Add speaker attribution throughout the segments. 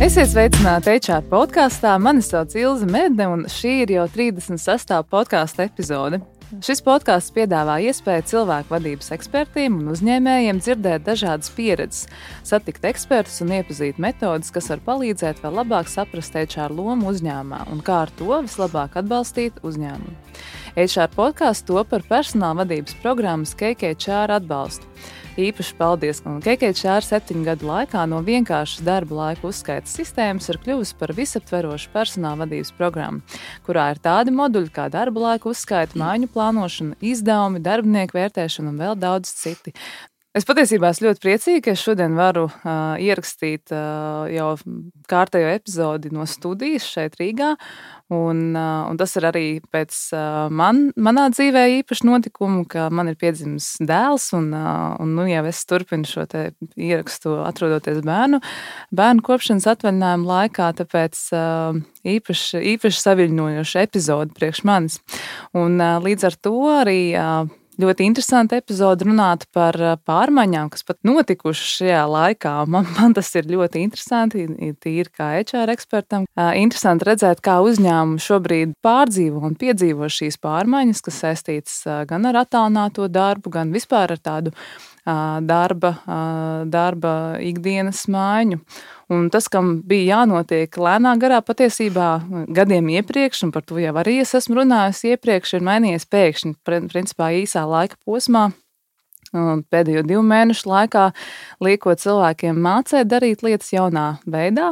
Speaker 1: Esiet sveicināti HR podkāstā. Mani sauc Ilze Medne, un šī ir jau 36. podkāstu epizode. Šis podkāsts piedāvā iespēju cilvēku vadības ekspertiem un uzņēmējiem dzirdēt dažādas pieredzes, satikt ekspertus un iepazīt metodes, kas var palīdzēt vēl labāk saprast HR lomu uzņēmumā un kā ar to vislabāk atbalstīt uzņēmumu. HR podkāsts top par personāla vadības programmas KKHR atbalstu. Īpaši paldies, ka KKHR 7 gadu laikā no vienkāršas darba laika uzskaitas sistēmas ir kļuvusi par visaptverošu personāla vadības programmu, kurā ir tādi moduļi kā darba laika uzskaita, mājiņu plānošana, izdevumi, darbinieku vērtēšana un vēl daudz citi. Es patiesībā esmu ļoti priecīga, ka es šodien varu ierakstīt jau kārtējo epizodi no studijas šeit Rīgā. Un tas ir arī pēc manā dzīvē īpaši notikumu, ka man ir piedzimis dēls, un nu jau es turpinu šo te ierakstu atrodoties bērnu kopšanas atvaļinājuma laikā, tāpēc īpaši saviļņojoša epizode priekš manis. Un līdz ar to arī ļoti interesanti epizode runāt par pārmaiņām, kas pat notikušas šajā laikā. Man tas ir ļoti interesanti, tīri kā HR ekspertam. Interesanti redzēt, kā uzņēmumi šobrīd pārdzīvo un piedzīvo šīs pārmaiņas, kas saistītas gan ar attālināto darbu, gan vispār ar tādu darba ikdienas maiņu. Un tas, kam bija jānotiek lēnā garā patiesībā gadiem iepriekš, un par to jau arī es esmu runājusi iepriekš, ir mainījies pēkšņi, principā īsā laika posmā, pēdējo 2 mēnešu laikā, liekot cilvēkiem mācēt darīt lietas jaunā veidā.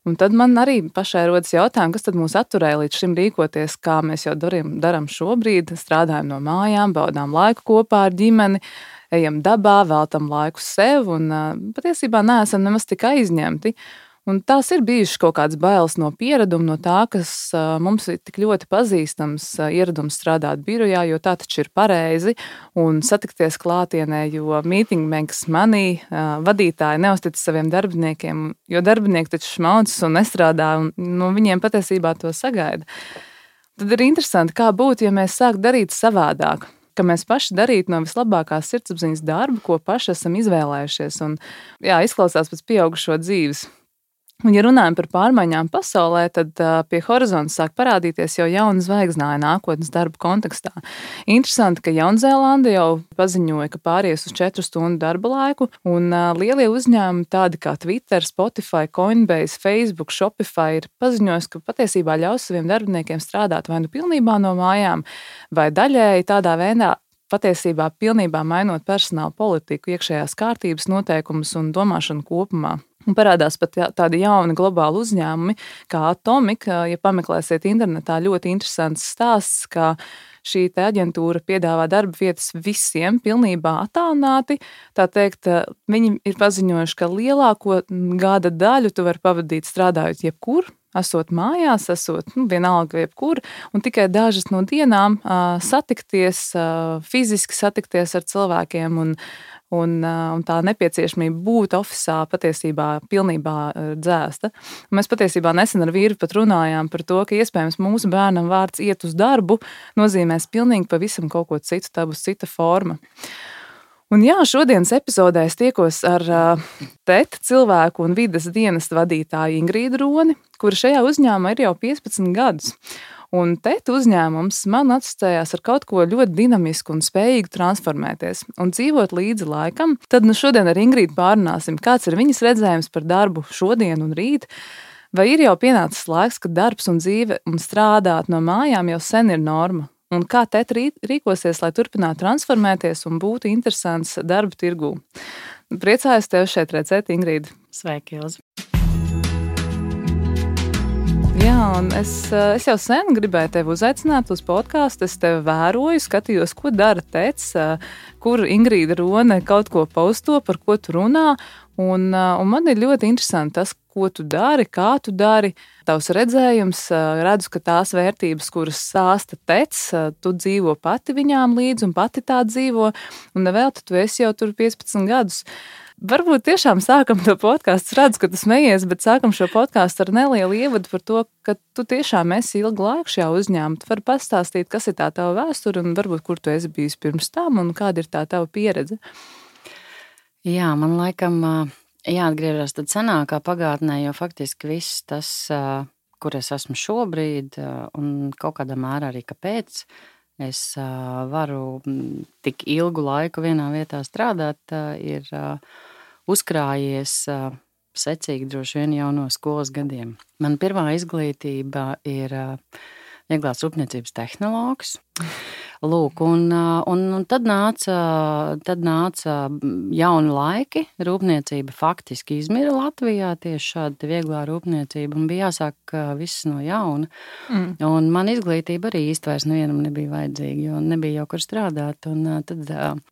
Speaker 1: Un tad man arī pašai rodas jautājumi, kas tad mūs atturēja līdz šim rīkoties, kā mēs jau daram šobrīd, strādājam no mājām, baudām laiku kopā ar ģimeni, ejam dabā, veltam laiku sev un patiesībā neesam nemaz tik aizņemti. Un tās ir bijušas kaut kādas bailes no piereduma, no tā, kas mums ir tik ļoti pazīstams ieradums strādāt birojā, jo tā taču ir pareizi, un satikties klātienē, jo meeting makes money, vadītāji neuztic saviem darbiniekiem, jo darbinieki taču šmaucas un nestrādā, un no viņiem patiesībā to sagaida. Tad ir interesanti, kā būtu, ja mēs sāktu darīt savādāk, ka mēs paši darītu no vislabākās sirdsapziņas darbu, ko paši esam izvēlējušies. Un, izklausās pēc pieaugušo dzīves. Un, ja runājam par pārmaiņām pasaulē, tad pie horizonta sāk parādīties jau jauna zvaigznāja nākotnes darba kontekstā. Interesanti, ka Jaunzēlande jau paziņoja, ka pāries uz 4 stundu darba laiku, un lielie uzņēmumi tādi kā Twitter, Spotify, Coinbase, Facebook, Shopify ir paziņojis, ka patiesībā ļaus saviem darbiniekiem strādāt vai nu pilnībā no mājām, vai daļēji tādā veidā, patiesībā pilnībā mainot personāla politiku, iekšējās kārtības noteikumus un domāšanu kopumā. Un parādās pat tādi jauni globāli uzņēmumi, kā Atomic. Ja pameklēsiet internetā, ļoti interesants stāsts, ka šī te aģentūra piedāvā darba vietas visiem pilnībā attālināti. Tā teikt, viņi ir paziņojuši, ka lielāko gada daļu tu vari pavadīt strādājot jebkur, esot mājās, esot vienalga jebkur, un tikai dažas no dienām satikties, fiziski satikties ar cilvēkiem un tā nepieciešamība būt ofisā patiesībā pilnībā dzēsta. Un mēs patiesībā nesen ar vīru pat runājām par to, ka iespējams mūsu bērnam vārds iet uz darbu nozīmēs pilnīgi pavisam kaut ko citu, tā būs cita forma. Un šodienas epizodē es tiekos ar TET cilvēku un vides dienesta vadītāju Ingrīdu Roni, kura šajā uzņēmumā ir jau 15 gadus. Un TET uzņēmums man asociējās ar kaut ko ļoti dinamisku un spējīgu transformēties un dzīvot līdzi laikam. Tad šodien ar Ingrīdu pārunāsim, kāds ir viņas redzējums par darbu šodien un rīt. Vai ir jau pienācis laiks, ka darbs un dzīve un strādāt no mājām jau sen ir norma? Un kā TET rīkosies, lai turpinātu transformēties un būtu interesants darba tirgū? Priecājos tevi šeit redzēt, Ingrīda.
Speaker 2: Sveiki, Ilze.
Speaker 1: Un es jau sen gribēju tevi uzaicināt uz podkāstu. Es tevi vēroju, skatījos, ko dara TET, kur Ingrīda Rone kaut ko posto, par ko tu runā. Un man ir ļoti interesanti tas, ko tu dari, kā tu dari, tavs redzējums. Redzu, ka tās vērtības, kuras stāsta TET, tu dzīvo pati viņām līdzi un pati tā dzīvo. Un nevēl tu esi jau tur 15 gadus. Varbūt tiešām sākam to podkāstu, redzu, ka tu smejies, bet sākam šo podkāstu ar nelielu ievadu par to, ka tu tiešām esi ilgu laiku šajā uzņēmumā. Tu vari pastāstīt, kas ir tā tava vēsture un varbūt, kur tu esi bijis pirms tam un kāda ir tā tava pieredze.
Speaker 2: Jā, man laikam jāatgriežas tad senākā pagātnē, jo faktiski viss tas, kur es esmu šobrīd, un kaut kādā mērā arī kāpēc es varu tik ilgu laiku vienā vietā strādāt, ir uzkrājies secīgi droši vien jau no skolas gadiem. Man pirmā izglītība ir vieglās rūpniecības tehnologs. Lūk, un tad nāca jauni laiki. Rūpniecība faktiski izmira Latvijā, tieši šāda vieglā rūpniecība, un bija jāsāk viss no jauna. Un man izglītība arī īsti vairs nevienam nebija vajadzīga, jo nebija jau kur strādāt. Un tad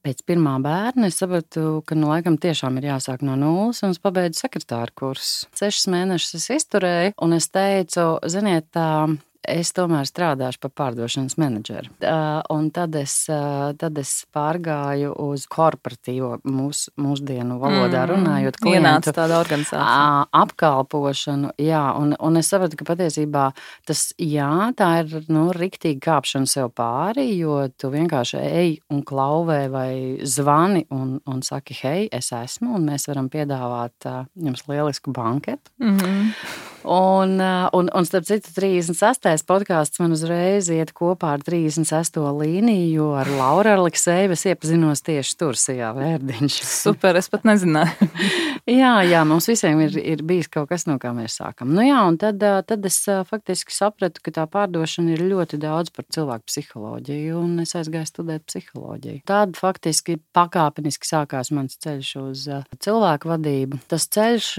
Speaker 2: pēc pirmā bērna es sapratu, ka laikam tiešām ir jāsāk no nulles, un es pabeidzu sekretāru kursu. 6 mēnešus es izturēju, un es teicu, ziniet, es tomēr strādāšu par pārdošanas menedžeru. Un tad es pārgāju uz korporatīvo mūsdienu valodā runājot klientu
Speaker 1: tāda organizācija.
Speaker 2: Apkalpošanu. Jā, un es sapratu, ka patiesībā tā ir riktīgi kāpšana sev pāri, jo tu vienkārši ej un klauvē vai zvani un saki, hei, es esmu, un mēs varam piedāvāt jums lielisku banketu. Un starp citu 36. podkāsts man uzreiz iet kopā ar 36. līniju, jo ar Lauru Aleksejevu es iepazinos tieši tur, Sijā Vērdiņš.
Speaker 1: Super, es pat nezināju.
Speaker 2: Jā, mums visiem ir bijis kaut kas, no kā mēs sākam. Un tad es faktiski sapratu, ka tā pārdošana ir ļoti daudz par cilvēku psiholoģiju, un es aizgāju studēt psiholoģiju. Tad faktiski pakāpeniski sākās mans ceļš uz cilvēku vadību. Tas ceļš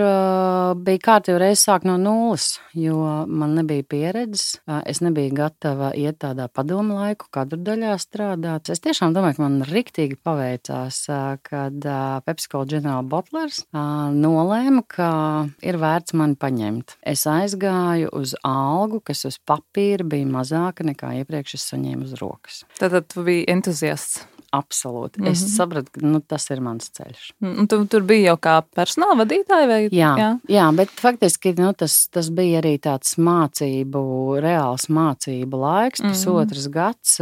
Speaker 2: bija kārtīgi reiz sāk no nulles, jo man nebija pieredzes. Es nebiju gatava iet tādā padomu laiku, kadru daļā strādāt. Es tiešām domāju, ka man riktīgi paveicās, kad PepsiCo General Bottlers nolēma, ka ir vērts mani paņemt. Es aizgāju uz algu, kas uz papīra bija mazāka nekā iepriekš es saņēmu uz rokas.
Speaker 1: Tātad tu biji entuziasts.
Speaker 2: Absolūti. Es sapratu, ka tas ir mans ceļš.
Speaker 1: Un tu tur biji jau kā personāla vadītāja? Vai?
Speaker 2: Jā, bet faktiski tas bija arī tāds reāls mācību laiks, pusotras gads,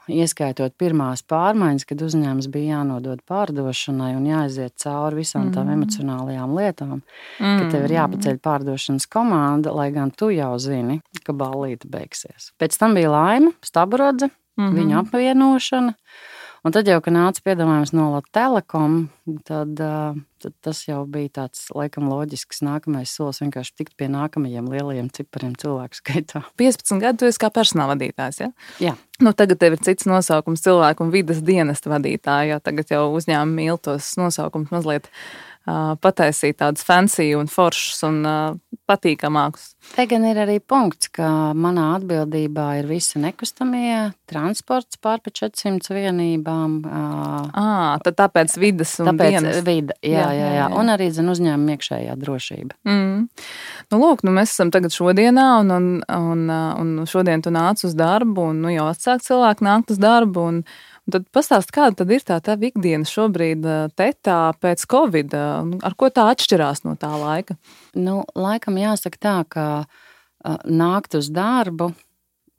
Speaker 2: ieskaitot pirmās pārmaiņas, kad uzņēmums bija jānodod pārdošanai un jāaiziet cauri visām tām emocionālajām lietām, ka tev ir jāpaceļ pārdošanas komanda, lai gan tu jau zini, ka ballīte beigsies. Pēc tam bija Laima Staburodze, viņa apvienošana. Un tad jau, kad nāca piedāvājums no Telekom, tad tas jau bija tāds, laikam, loģisks nākamais solis, vienkārši tikt pie nākamajiem lielajiem cipariem cilvēku skaitā.
Speaker 1: 15 gadu tu esi kā personāla vadītājs, ja?
Speaker 2: Jā.
Speaker 1: Tagad tev ir cits nosaukums cilvēku un vides dienesta vadītāja, jo tagad jau uzņēmumi mīl tos nosaukums mazliet pataisīt tādus fancy un foršus un patīkamākus.
Speaker 2: Te gan ir arī punkts, ka manā atbildībā ir visi nekustamie transports pār pa 400 vienībām.
Speaker 1: Tad tāpēc vides un dienas.
Speaker 2: Tāpēc vida, jā. Un arī uzņēmuma iekšējā drošība.
Speaker 1: Mēs esam tagad šodienā un šodien tu nāc uz darbu un jau atsāk cilvēki nākt uz darbu un tad pastāst, kāda tad ir tā ikdiena šobrīd tetā pēc Covid, ar ko tā atšķirās no tā laika?
Speaker 2: Laikam jāsaka tā, ka nākt uz darbu,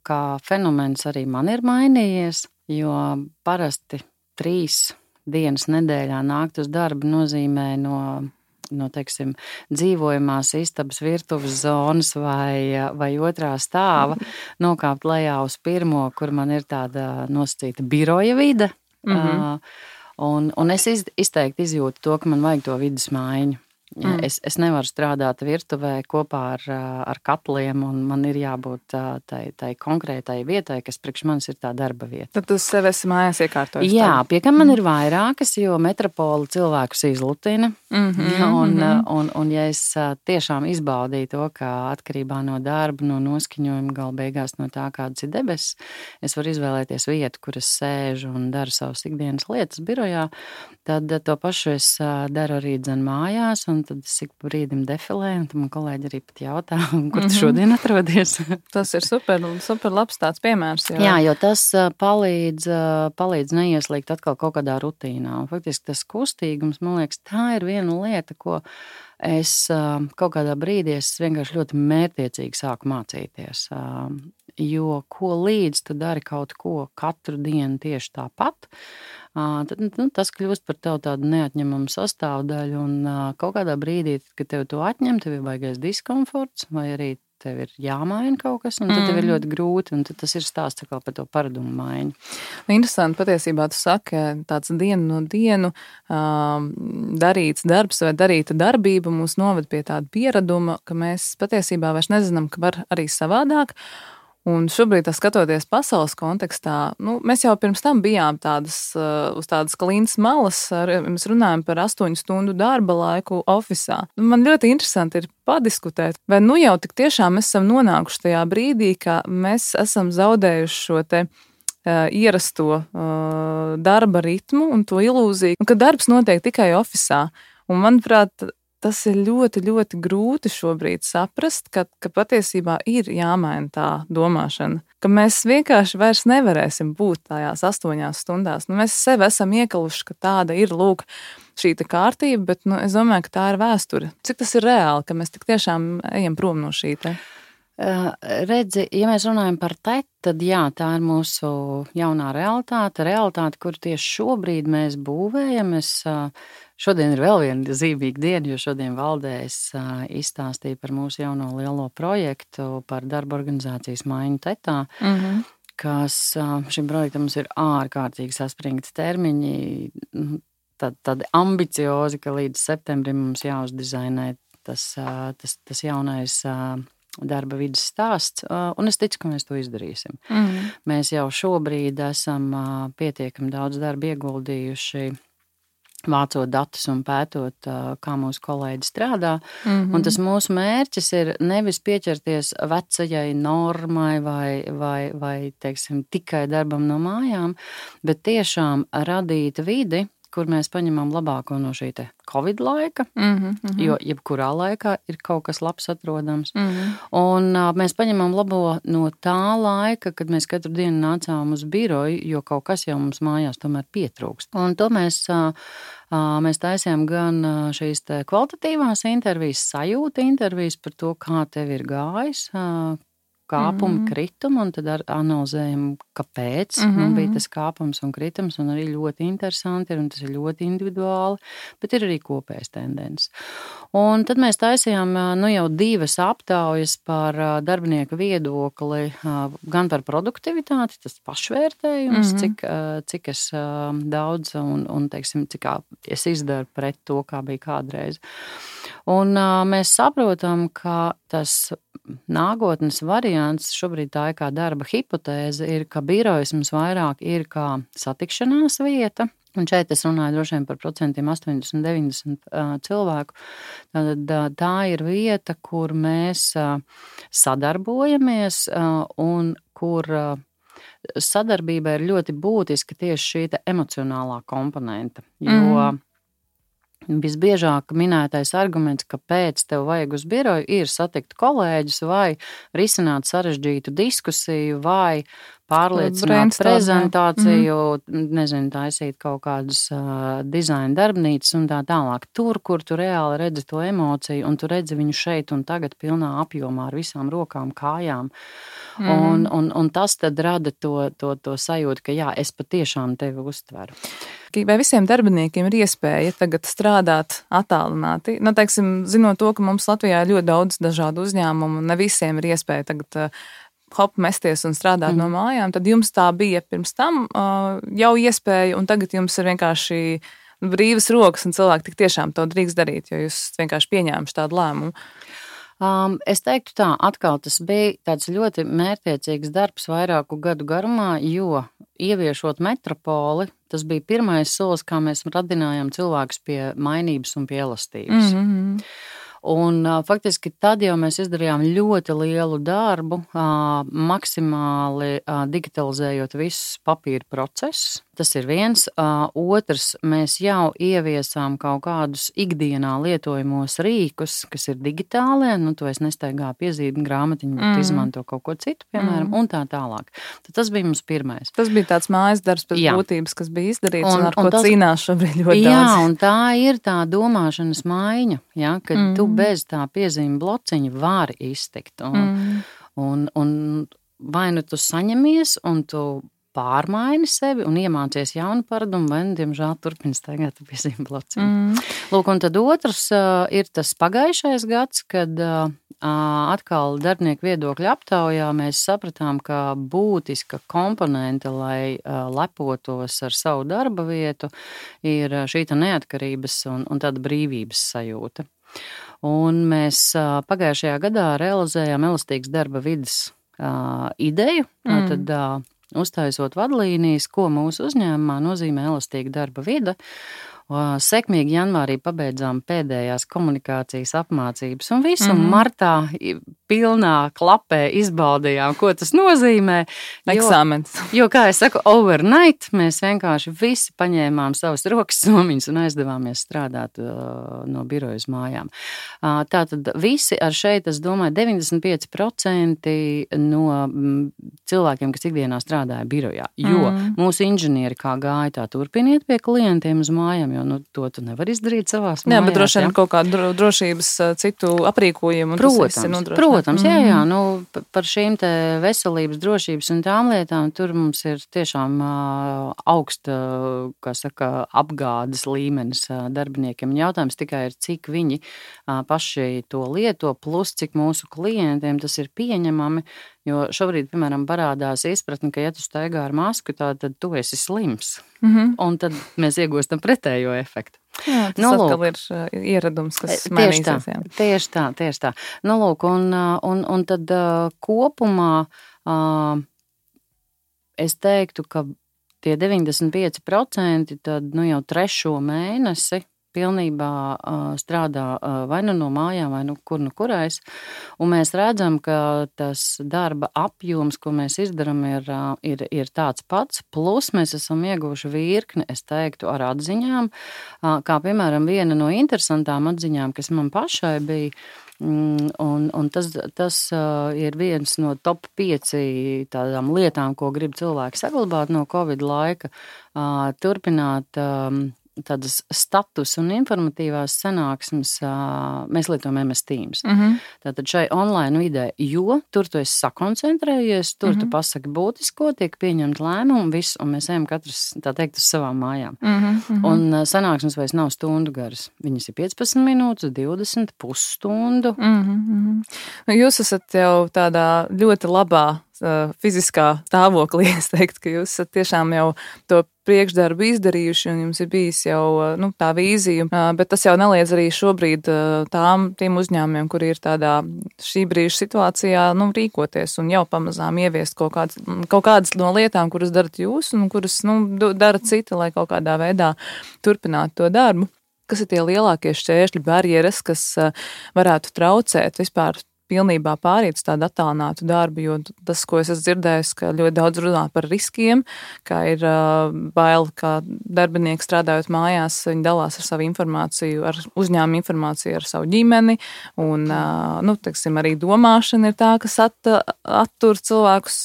Speaker 2: kā fenomens arī man ir mainījies, jo parasti 3 dienas nedēļā nākt uz darbu nozīmē no teiksim, dzīvojamās istabas virtuves zonas vai otrā stāva nokāpt lejā uz pirmo, kur man ir tāda nosacīta biroja vide. Un es izteikti izjūtu to, ka man vajag to vides maiņu. Es nevaru strādāt virtuvē kopā ar katliem, un man ir jābūt tai konkrētai vietai, kas priekš manis ir tā darba vieta.
Speaker 1: Tad tu sev esi mājās iekārtojis?
Speaker 2: Jā, pie kam man ir vairākas, jo metropola cilvēkus izlutina. Un ja es tiešām izbaudīju to, ka atkarībā no darba, no noskaņojuma, gala beigās no tā, kādas ir debesis, es varu izvēlēties vietu, kur es sēžu un daru savas ikdienas lietas birojā, tad to pašu es daru arī mājās, un tad es ik pa brīdim defilēju, un tad man kolēģi arī pat jautā, kur tu šodien atrodies.
Speaker 1: Tas ir super labs tāds piemērs.
Speaker 2: Jā, jo tas palīdz neieslīgt atkal kaut kādā rutīnā. Un faktiski tas kustīgums, man liekas, tā ir viena lieta, ko es kaut kādā brīdī vienkārši ļoti mērķiecīgi sāku mācīties. jo ko līdz tu dari kaut ko katru dienu tieši tāpat, tad tas kļūst par tev tādu neatņemamu sastāvdaļu, un kaut kādā brīdī, kad tev to atņem, tev ir baigais diskomforts, vai arī tev ir jāmaina kaut kas, un tad tev ir ļoti grūti, un tad tas ir stāsts par to paradumu maiņu.
Speaker 1: Interesanti, patiesībā tu saki, tāds dienu no dienu darīts darbs vai darīta darbība mūs noved pie tāda pieraduma, ka mēs patiesībā vairs nezinām, ka var arī savādāk. Un šobrīd, skatoties pasaules kontekstā, mēs jau pirms tam bijām uz tādas klintas malas, mēs runājam par 8 stundu darba laiku ofisā. Man ļoti interesanti ir padiskutēt, vai jau tik tiešām mēs esam nonākuši tajā brīdī, ka mēs esam zaudējuši šo te ierasto darba ritmu un to ilūziju, ka darbs notiek tikai ofisā. Un manuprāt, tas ir ļoti, ļoti grūti šobrīd saprast, ka patiesībā ir jāmaina tā domāšana, ka mēs vienkārši vairs nevarēsim būt tajās 8 stundās. Mēs sevi esam iekaluši, ka tāda ir, šī kārtība, bet es domāju, ka tā ir vēsture. Cik tas ir reāli, ka mēs tik tiešām ejam prom no šī te?
Speaker 2: Redzi, ja mēs runājam par tad jā, tā ir mūsu jaunā realitāte, kur tieši šobrīd mēs būvējam. Šodien ir vēl viena zīmīga diena, jo šodien valdē es izstāstīju par mūsu jauno lielo projektu par darba organizācijas maiņu tetā, kas šim projektam mums ir ārkārtīgi saspringti termiņi, tādi ambiciozi, ka līdz septembrim mums jāuzdizainē tas jaunais darba vidas stāsts, un es ticu, ka mēs to izdarīsim. Mēs jau šobrīd esam pietiekami daudz darba ieguldījuši, vācot datus un pētot, kā mūsu kolēģi strādā. Un tas mūsu mērķis ir nevis pieķerties vecajai normai vai teiksim, tikai darbam no mājām, bet tiešām radīt vidi, kur mēs paņemam labāko no šī te Covid laika, jo jebkurā laikā ir kaut kas labs atrodams. Un mēs paņemam labo no tā laika, kad mēs katru dienu nācām uz biroju, jo kaut kas jau mums mājās tomēr pietrūkst. Un to mēs taisījām gan šīs te kvalitatīvās intervijas, sajūta intervijas par to, kā tev ir gājis, kāpumi, kritumi, un tad analizējam, kāpēc bija tas kāpums un kritums, un arī ļoti interesanti ir, un tas ir ļoti individuāli, bet ir arī kopējas tendences. Un tad mēs taisījām jau 2 aptaujas par darbinieku viedokli, gan par produktivitāti, tas pašvērtējums, cik es daudz un teiksim, cik es izdaru pret to, kā bija kādreiz. Un mēs saprotam, ka tas nākotnes variants, šobrīd tā ir kā darba hipotēze, ir, ka birojas mums vairāk ir kā satikšanās vieta. Un šeit es runāju droši vien par 80-90% cilvēku. Tad tā ir vieta, kur mēs sadarbojamies un kur sadarbība ir ļoti būtiska tieši šī emocionālā komponenta. Jo visbiežāk minētais arguments, kāpēc tev vajag uz biroju, ir satikt kolēģus vai risināt sarežģītu diskusiju vai pārliecināt prezentāciju, taisīt kaut kādas dizaina darbnīcas un tā tālāk. Tur, kur tu reāli redzi to emociju un tu redzi viņu šeit un tagad pilnā apjomā ar visām rokām, kājām. Un tas tad rada to sajūtu, ka jā, es patiešām tevi uztveru.
Speaker 1: Vai visiem darbiniekiem ir iespēja tagad strādāt attālināti? Teiksim, zinot to, ka mums Latvijā ir ļoti daudz dažādu uzņēmumu un ne visiem ir iespēja tagad mesties un strādāt no mājām, tad jums tā bija pirms tam jau iespēja, un tagad jums ir vienkārši brīvas rokas un cilvēki tik tiešām to drīkst darīt, jo jūs vienkārši pieņēmuši tādu lēmumu.
Speaker 2: Es teiktu tā, atkal tas bija tāds ļoti mērķtiecīgs darbs vairāku gadu garumā, jo ieviešot metropoli, tas bija pirmais solis, kā mēs radinājām cilvēkus pie mainības un pie elastības. Un faktiski tad jau mēs izdarījām ļoti lielu darbu, maksimāli digitalizējot visus papīra procesus. Tas ir viens. Otrs, mēs jau ieviesām kaut kādus ikdienā lietojamos rīkus, kas ir digitālie, tu es nestaigā piezīmi grāmatiņu, bet izmanto kaut ko citu, piemēram, un tā tālāk. Tad tas bija mums pirmais.
Speaker 1: Tas bija tāds mājas darbs pēc būtības, kas bija izdarīts un ar ko cīnās šobrīd ļoti daudz.
Speaker 2: Jā, un tā ir tā domāšanas maiņa, kad tu bez tā piezīme blociņa vari iztikt. Un vai nu tu saņemies un tu pārmaini sevi un iemācies jaunu paradumu, vai, diemžēl, turpini staigāt pie zem blociem. Lūk, un tad otrs ir tas pagājušais gads, kad atkal darbinieku viedokļu aptaujā mēs sapratām, ka būtiska komponente, lai lepotos ar savu darba vietu, ir šī neatkarības un tāda brīvības sajūta. Un mēs pagājušajā gadā realizējām elastīgas darba vides ideju, tad uztaisot vadlīnijas, ko mūsu uzņēmumā nozīmē elastīga darba vide. Sekmīgi janvārī pabeidzām pēdējās komunikācijas apmācības un visu martā pilnā klapē izbaudījām, ko tas nozīmē.
Speaker 1: Eksāmens.
Speaker 2: Jo, kā es saku, overnight mēs vienkārši visi paņēmām savas rokas somiņas un aizdevāmies strādāt no biroja uz mājām. Tātad visi ar šeit, es domāju, 95% no cilvēkiem, kas ikdienā strādāja birojā, jo mūsu inženieri kā gāja tā turpiniet pie klientiem uz mājām, jo to tu nevar izdarīt savās mājās.
Speaker 1: Jā, bet droši vien kaut kādu drošības citu aprīkojumu.
Speaker 2: Protams, jā, par šīm te veselības, drošības un tām lietām tur mums ir tiešām augsta, kā saka, apgādes līmenis darbiniekiem. Jautājums tikai ir, cik viņi paši to lieto, plus cik mūsu klientiem tas ir pieņemami, jo šobrīd, piemēram, parādās izpratni, ka ja tu staigā ar masku, tad tu esi slims. Un tad mēs iegūstam pretējo efektu.
Speaker 1: Jā, tas atkal ir ieradums, kas mainīsies.
Speaker 2: Tieši tā. Lūk, un tad kopumā es teiktu, ka tie 95% tad jau 3. mēnesi pilnībā strādā vai nu no mājām, vai nu kurais. Un mēs redzam, ka tas darba apjoms, ko mēs izdaram, ir tāds pats. Plus mēs esam ieguvuši virkni, es teiktu, ar atziņām. Kā piemēram viena no interesantām atziņām, kas man pašai bija, un tas ir viens no top 5 tādām lietām, ko grib cilvēki saglabāt no Covid laika, turpināt tādas status un informatīvās sanāksmes, mēs lietojam MS Teams. Tātad šai online vidē, jo tur tu esi sakoncentrējies, tur tu pasaki būtisko, tiek pieņemt lēmumu, viss, un mēs ejam katrs, tā teikt, uz savām mājām. Un sanāksmes vairs nav stundu garas. Viņas ir 15 minūtes, 20, pusstundu.
Speaker 1: Jūs esat jau tādā ļoti labā fiziskā stāvoklī, es teiktu, ka jūs esat tiešām jau to priekšdarbu izdarījuši un jums ir bijis jau tā vīzija, bet tas jau neliedz arī šobrīd tiem uzņēmumiem, kuri ir tādā šī brīža situācijā, rīkoties un jau pamazām ieviest kaut kādas no lietām, kuras darat jūs un kuras, dara citi, lai kaut kādā veidā turpinātu to darbu. Kas ir tie lielākie šķēršļi, barjeras, kas varētu traucēt vispār pilnībā pāriet uz tādu attālinātu darbu, jo tas, ko es esmu dzirdējis, ka ļoti daudz runā par riskiem, ka ir bail, ka darbinieki strādājot mājās, viņi dalās ar savu informāciju, ar uzņēmumu informāciju, ar savu ģimeni, un, teiksim, arī domāšana ir tā, kas attur cilvēkus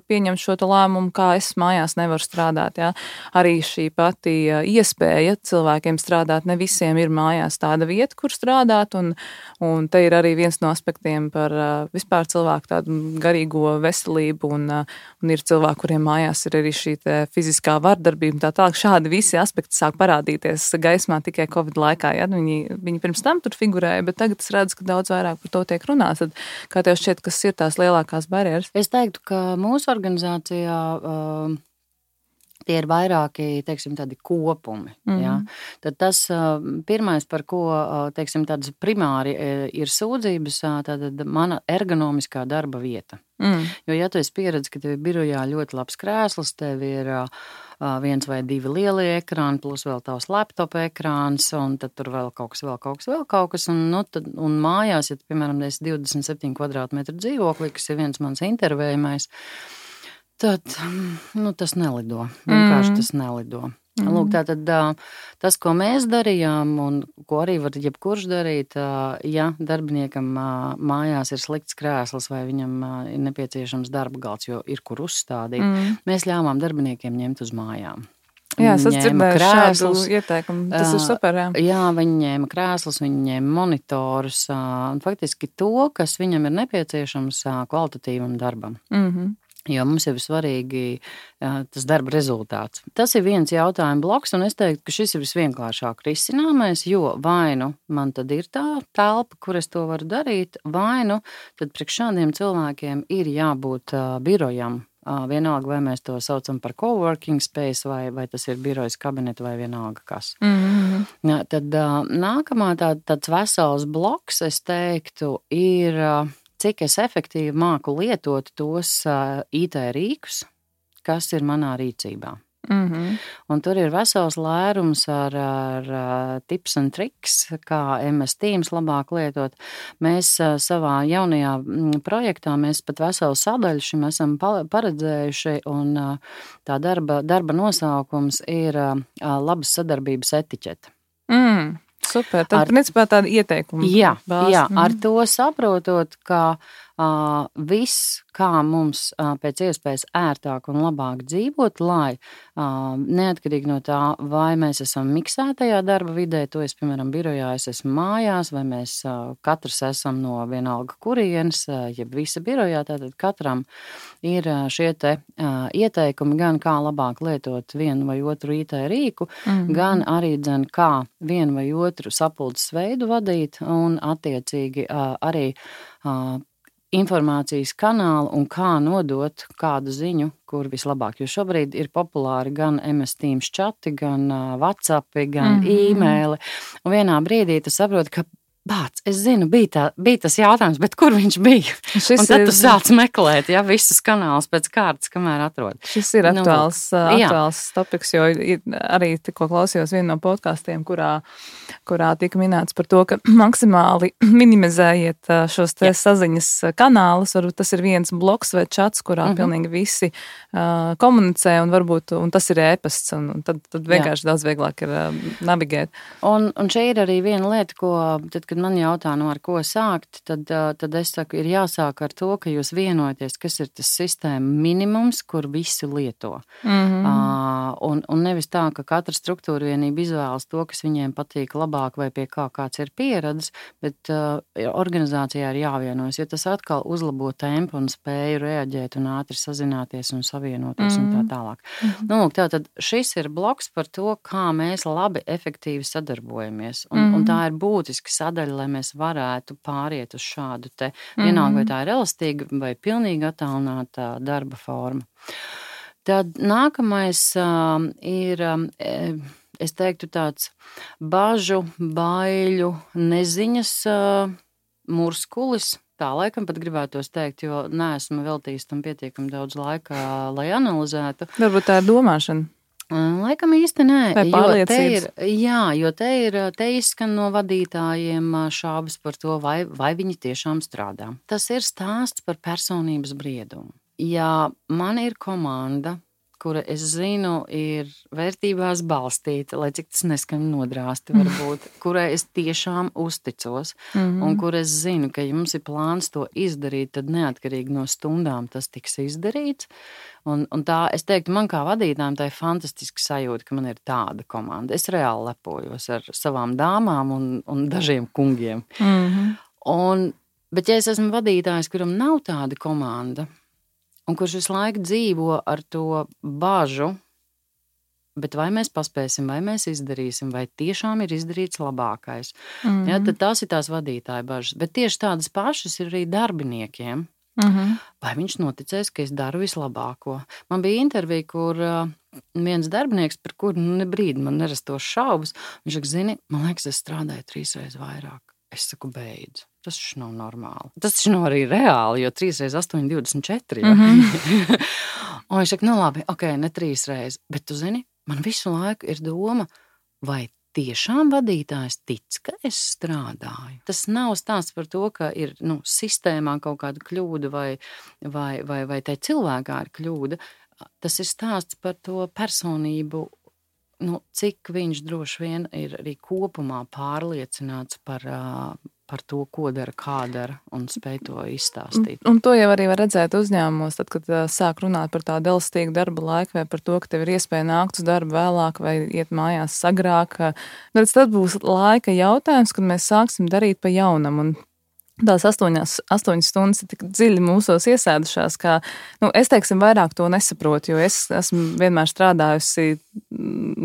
Speaker 1: pieņemt šo lēmumu, kā es mājās nevaru strādāt, jā. Arī šī pati iespēja cilvēkiem strādāt, ne visiem ir mājās tāda vieta, kur strādāt, un te ir arī viens no aspektiem par vispār cilvēku tādu garīgo veselību un ir cilvēki, kuriem mājās ir arī šī fiziskā vardarbība. Tā tālāk šādi visi aspekti sāk parādīties gaismā tikai Covid laikā. Ja? Viņi pirms tam tur figurēja, bet tagad es redzu, ka daudz vairāk par to tiek runāts. Tad, kā tev šķiet, kas ir tās lielākās barjeras?
Speaker 2: Es teiktu, ka mūsu organizācijā tie ir vairāki, teiksim, tādi kopumi. Ja? Tad tas pirmais, par ko, teiksim, tādas primāri ir sūdzības, tad mana ergonomiskā darba vieta. Jo, ja tu esi pieredzi, ka tev ir birojā ļoti labs krēsls, tev ir 1 vai 2 lielie ekrāni, plus vēl tavs laptop ekrāns, un tad tur vēl kaut kas, un mājās, ja, piemēram, es 27 kvadrātmetru dzīvoklī, kas ir viens mans intervējumais, tad, tas nelido. Vienkārši tas nelido. Lūk, tātad tas, ko mēs darījām un ko arī var jebkurš darīt, ja darbiniekam mājās ir slikts krēsls vai viņam ir nepieciešams darba galds, jo ir kur uzstādīt, mēs ļāvām darbiniekiem ņemt uz mājām.
Speaker 1: Jā, es dzirdēju šādu ieteikumu. Tas ir super, jā.
Speaker 2: Jā, viņi ņēma krēslus, viņi ņēma monitorus, un faktiski to, kas viņam ir nepieciešams kvalitatīvam darbam. Jo mums jau ir svarīgi tas darba rezultāts. Tas ir viens jautājuma bloks, un es teiktu, ka šis ir visvienkāršāk risināmais, jo vai nu man tad ir tā telpa, kur es to varu darīt, vai nu tad priekš šādiem cilvēkiem ir jābūt birojam. Vienalga, vai mēs to saucam par coworking space, vai tas ir birojas kabineti, vai vienalga kas. Tad nākamā tāds vesels bloks, es teiktu, ir... cik es efektīvi māku lietot tos IT rīkus, kas ir manā rīcībā. Un tur ir vesels lērums ar tips un triks, kā MS Teams labāk lietot. Mēs savā jaunajā projektā, mēs pat veselu sadaļu šim esam paredzējuši, un tā darba nosaukums ir labas sadarbības etiķete.
Speaker 1: Super, tad principā tāda ieteikuma.
Speaker 2: Jā, ar to saprotot, ka viss, kā mums pēc iespējas ērtāk un labāk dzīvot, lai neatkarīgi no tā, vai mēs esam miksētajā darba vidē, to es, piemēram, birojā, es esmu mājās, vai mēs katrs esam no vienalga kurienes, jeb visa birojā, tātad katram ir šie te ieteikumi gan kā labāk lietot vienu vai otru IT rīku, gan arī kā vienu vai otru sapulces veidu vadīt un attiecīgi arī informācijas kanālu un kā nodot kādu ziņu, kur vislabāk. Jo šobrīd ir populāri gan MS Teams čati, gan WhatsAppi, gan e-maili. Un vienā brīdī tu saproti, ka es zinu, bija tas jautājums, bet kur viņš bija? Un tad tu sāc meklēt, visus kanālus pēc kārtas, kamēr atrod.
Speaker 1: Šis ir aktuāls topiks, jo arī tikko klausījos vienu no podkastiem, kurā tika minēts par to, ka maksimāli minimizējiet šos te saziņas kanālus. Varbūt tas ir viens bloks vai čats, kurā pilnīgi visi komunicē, un tas ir e-pasts, un tad vienkārši daudz vieglāk ir navigēt.
Speaker 2: Un šeit ir arī viena lieta, kad man jautā, ar ko sākt, tad es saku, ir jāsāk ar to, ka jūs vienojaties, kas ir tas sistēma minimums, kur visi lieto. Un nevis tā, ka katra struktūra vienība izvēlas to, kas viņiem patīk labāk vai pie kā kāds ir pieredzes, bet organizācijā ir jāvienojas, jo tas atkal uzlabo tempu un spēju reaģēt un ātri sazināties un savienoties un tā tālāk. Tātad šis ir bloks par to, kā mēs labi, efektīvi sadarbojamies. Un tā ir būtiska sadaļa, lai mēs varētu pāriet uz šādu te, vienalga, vai tā ir elastīga vai pilnīgi attālināta darba forma. Tad nākamais ir, es teiktu, tāds bažu, baiļu, neziņas murskulis. Tā laikam pat gribētos teikt, jo neesmu veltījis tam pietiekami daudz laika, lai analizētu.
Speaker 1: Varbūt tā ir domāšana.
Speaker 2: Laikam īsti nē,
Speaker 1: jo
Speaker 2: te izskan no vadītājiem šaubas par to, vai viņi tiešām strādā. Tas ir stāsts par personības briedumu. Ja man ir komanda, kura, es zinu, ir vērtībās balstīta, lai cik tas neskan nodrāsti varbūt, kurai es tiešām uzticos, un kur es zinu, ka ja mums ir plāns to izdarīt, tad neatkarīgi no stundām tas tiks izdarīts. Un tā, es teiktu, man kā vadītājiem tā ir fantastiska sajūta, ka man ir tāda komanda. Es reāli lepojos ar savām dāmām un dažiem kungiem. Bet ja es esmu vadītājs, kuram nav tāda komanda, un kurš visu laiku dzīvo ar to bažu, bet vai mēs paspēsim, vai mēs izdarīsim, vai tiešām ir izdarīts labākais. Tad tās ir tās vadītāja bažas. Bet tieši tādas pašas ir arī darbiniekiem. Vai viņš noticēs, ka es daru vislabāko. Man bija intervija, kur viens darbinieks, par kuru ne brīdi man nerastos šaubas, viņš saka, zini, man liekas, es strādāju 3 reizes vairāk. Es saku, beidz. Tas taču nav normāli. Tas taču nav arī reāli, jo 3 reizes 8, 24. Un viņš saka, labi, ne 3 reizes. Bet tu zini, man visu laiku ir doma, vai tiešām vadītājs tic, ka es strādāju. Tas nav stāsts par to, ka ir sistēmā kaut kāda kļūda vai tai cilvēkā ir kļūda. Tas ir stāsts par to personību, cik viņš droši vien ir arī kopumā pārliecināts par to, ko dara, kā dara, un spēj to izstāstīt. Un to jau arī var redzēt uzņēmumos, tad, kad sāk runāt par tādu elastīgu darba laiku, vai par to, ka tev ir iespēja nākt uz darbu vēlāk, vai iet mājās agrāk. Tad būs laika jautājums, kad mēs sāksim darīt pa jaunam. Un
Speaker 1: tās 8 stundas ir tik dziļi mūsos iesēdušās, ka, es teiksim, vairāk to nesaprotu, jo es esmu vienmēr strādājusi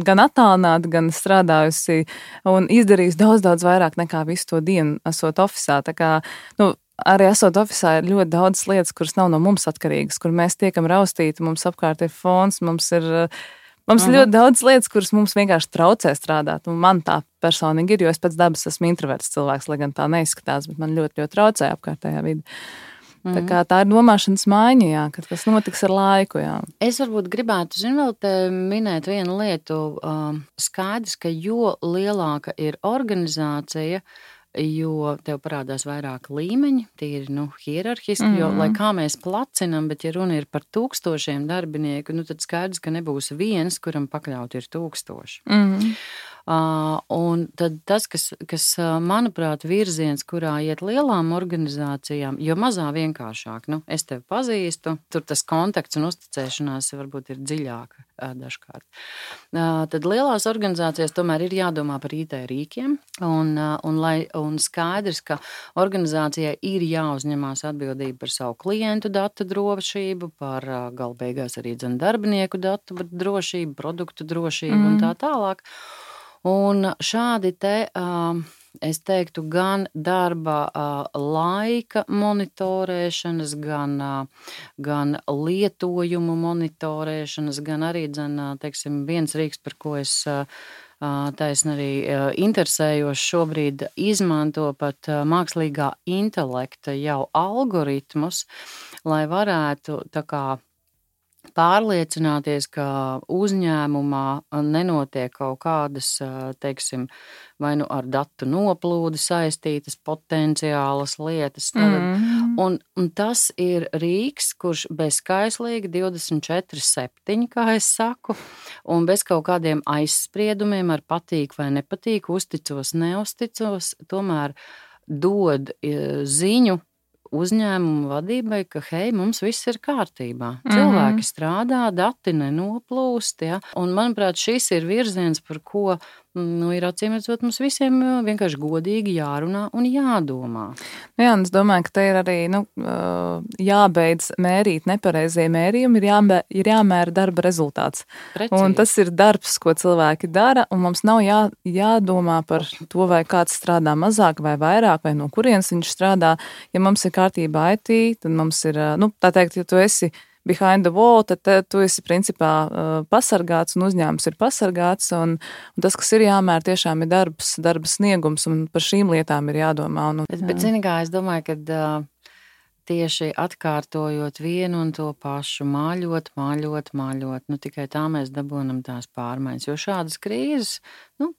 Speaker 1: gan attālināti, gan strādājusi un izdarījusi daudz vairāk nekā visu to dienu esot ofisā. Tā kā, arī esot ofisā ir ļoti daudz lietas, kuras nav no mums atkarīgas, kur mēs tiekam raustīti, mums apkārt ir fons, mums ir ļoti daudz lietas, kuras mums vienkārši traucē strādāt. Un man tā personīgi ir, jo es pēc dabas esmu introverts cilvēks, lai gan tā neizskatās, bet man ļoti traucē apkārtējā vide. Tā kā tā ir domāšanas maiņa, jā, kad tas notiks ar laiku. Jā.
Speaker 2: Es varbūt gribētu, vēl te minēt vienu lietu. Skaidrs, ka jo lielāka ir organizācija, jo tev parādās vairāk līmeņi, tīri hierarhiski, jo, lai kā mēs placinam, bet ja runa ir par 1000 darbinieku, tad skaidrs, ka nebūs viens, kuram pakļaut ir 1000. Un tad tas, kas manuprāt, virziens, kurā iet lielām organizācijām, jo mazā vienkāršāk, es tevi pazīstu, tur tas kontakts un uzticēšanās varbūt ir dziļāka dažkārt. Tad lielās organizācijās tomēr ir jādomā par IT rīkiem, un skaidrs, ka organizācijai ir jāuzņemās atbildība par savu klientu datu drošību, par galbeigās arī darbinieku datu drošību, produktu drošību un tā tālāk. Un šādi te, es teiktu, gan darba laika monitorēšanas, gan lietojumu monitorēšanas, gan arī, teiksim, viens rīks, par ko es taisni arī interesējos šobrīd, izmanto pat mākslīgā intelekta jau algoritmus, lai varētu tā kā pārliecināties, ka uzņēmumā nenotiek kaut kādas, teiksim, vai ar datu noplūdi saistītas potenciālas lietas. Un tas ir rīks, kurš bezskaislīgi 24/7, kā es saku, un bez kaut kādiem aizspriedumiem ar patīk vai nepatīk, uzticos, neuzticos, tomēr dod ziņu uzņēmumu vadībai, ka, hei, mums viss ir kārtībā. Cilvēki strādā, dati nenoplūst, ja? Un, manuprāt, šis ir virziens, par ko, ir acīmredzot, mums visiem vienkārši godīgi jārunā un jādomā.
Speaker 1: Jā, un es domāju, ka te ir arī, jābeidz mērīt nepareizie mērījumi, ir jāmēra darba rezultāts. Precīzi. Un tas ir darbs, ko cilvēki dara, un mums nav jādomā par to, vai kāds strādā mazāk vai vairāk, vai no kurienes viņš strādā. Ja mums ir kārtībā IT, tad mums ir, tā teikt, ja tu esi behind the wall, tad tu esi principā pasargāts un uzņēmums ir pasargāts, un tas, kas ir jāmēr, tiešām ir darba sniegums, un par šīm lietām ir jādomā.
Speaker 2: Bet zini kā, es domāju, ka tieši atkārtojot vienu un to pašu, māļot, tikai tā mēs dabonam tās pārmaiņas, jo šādas krīzes,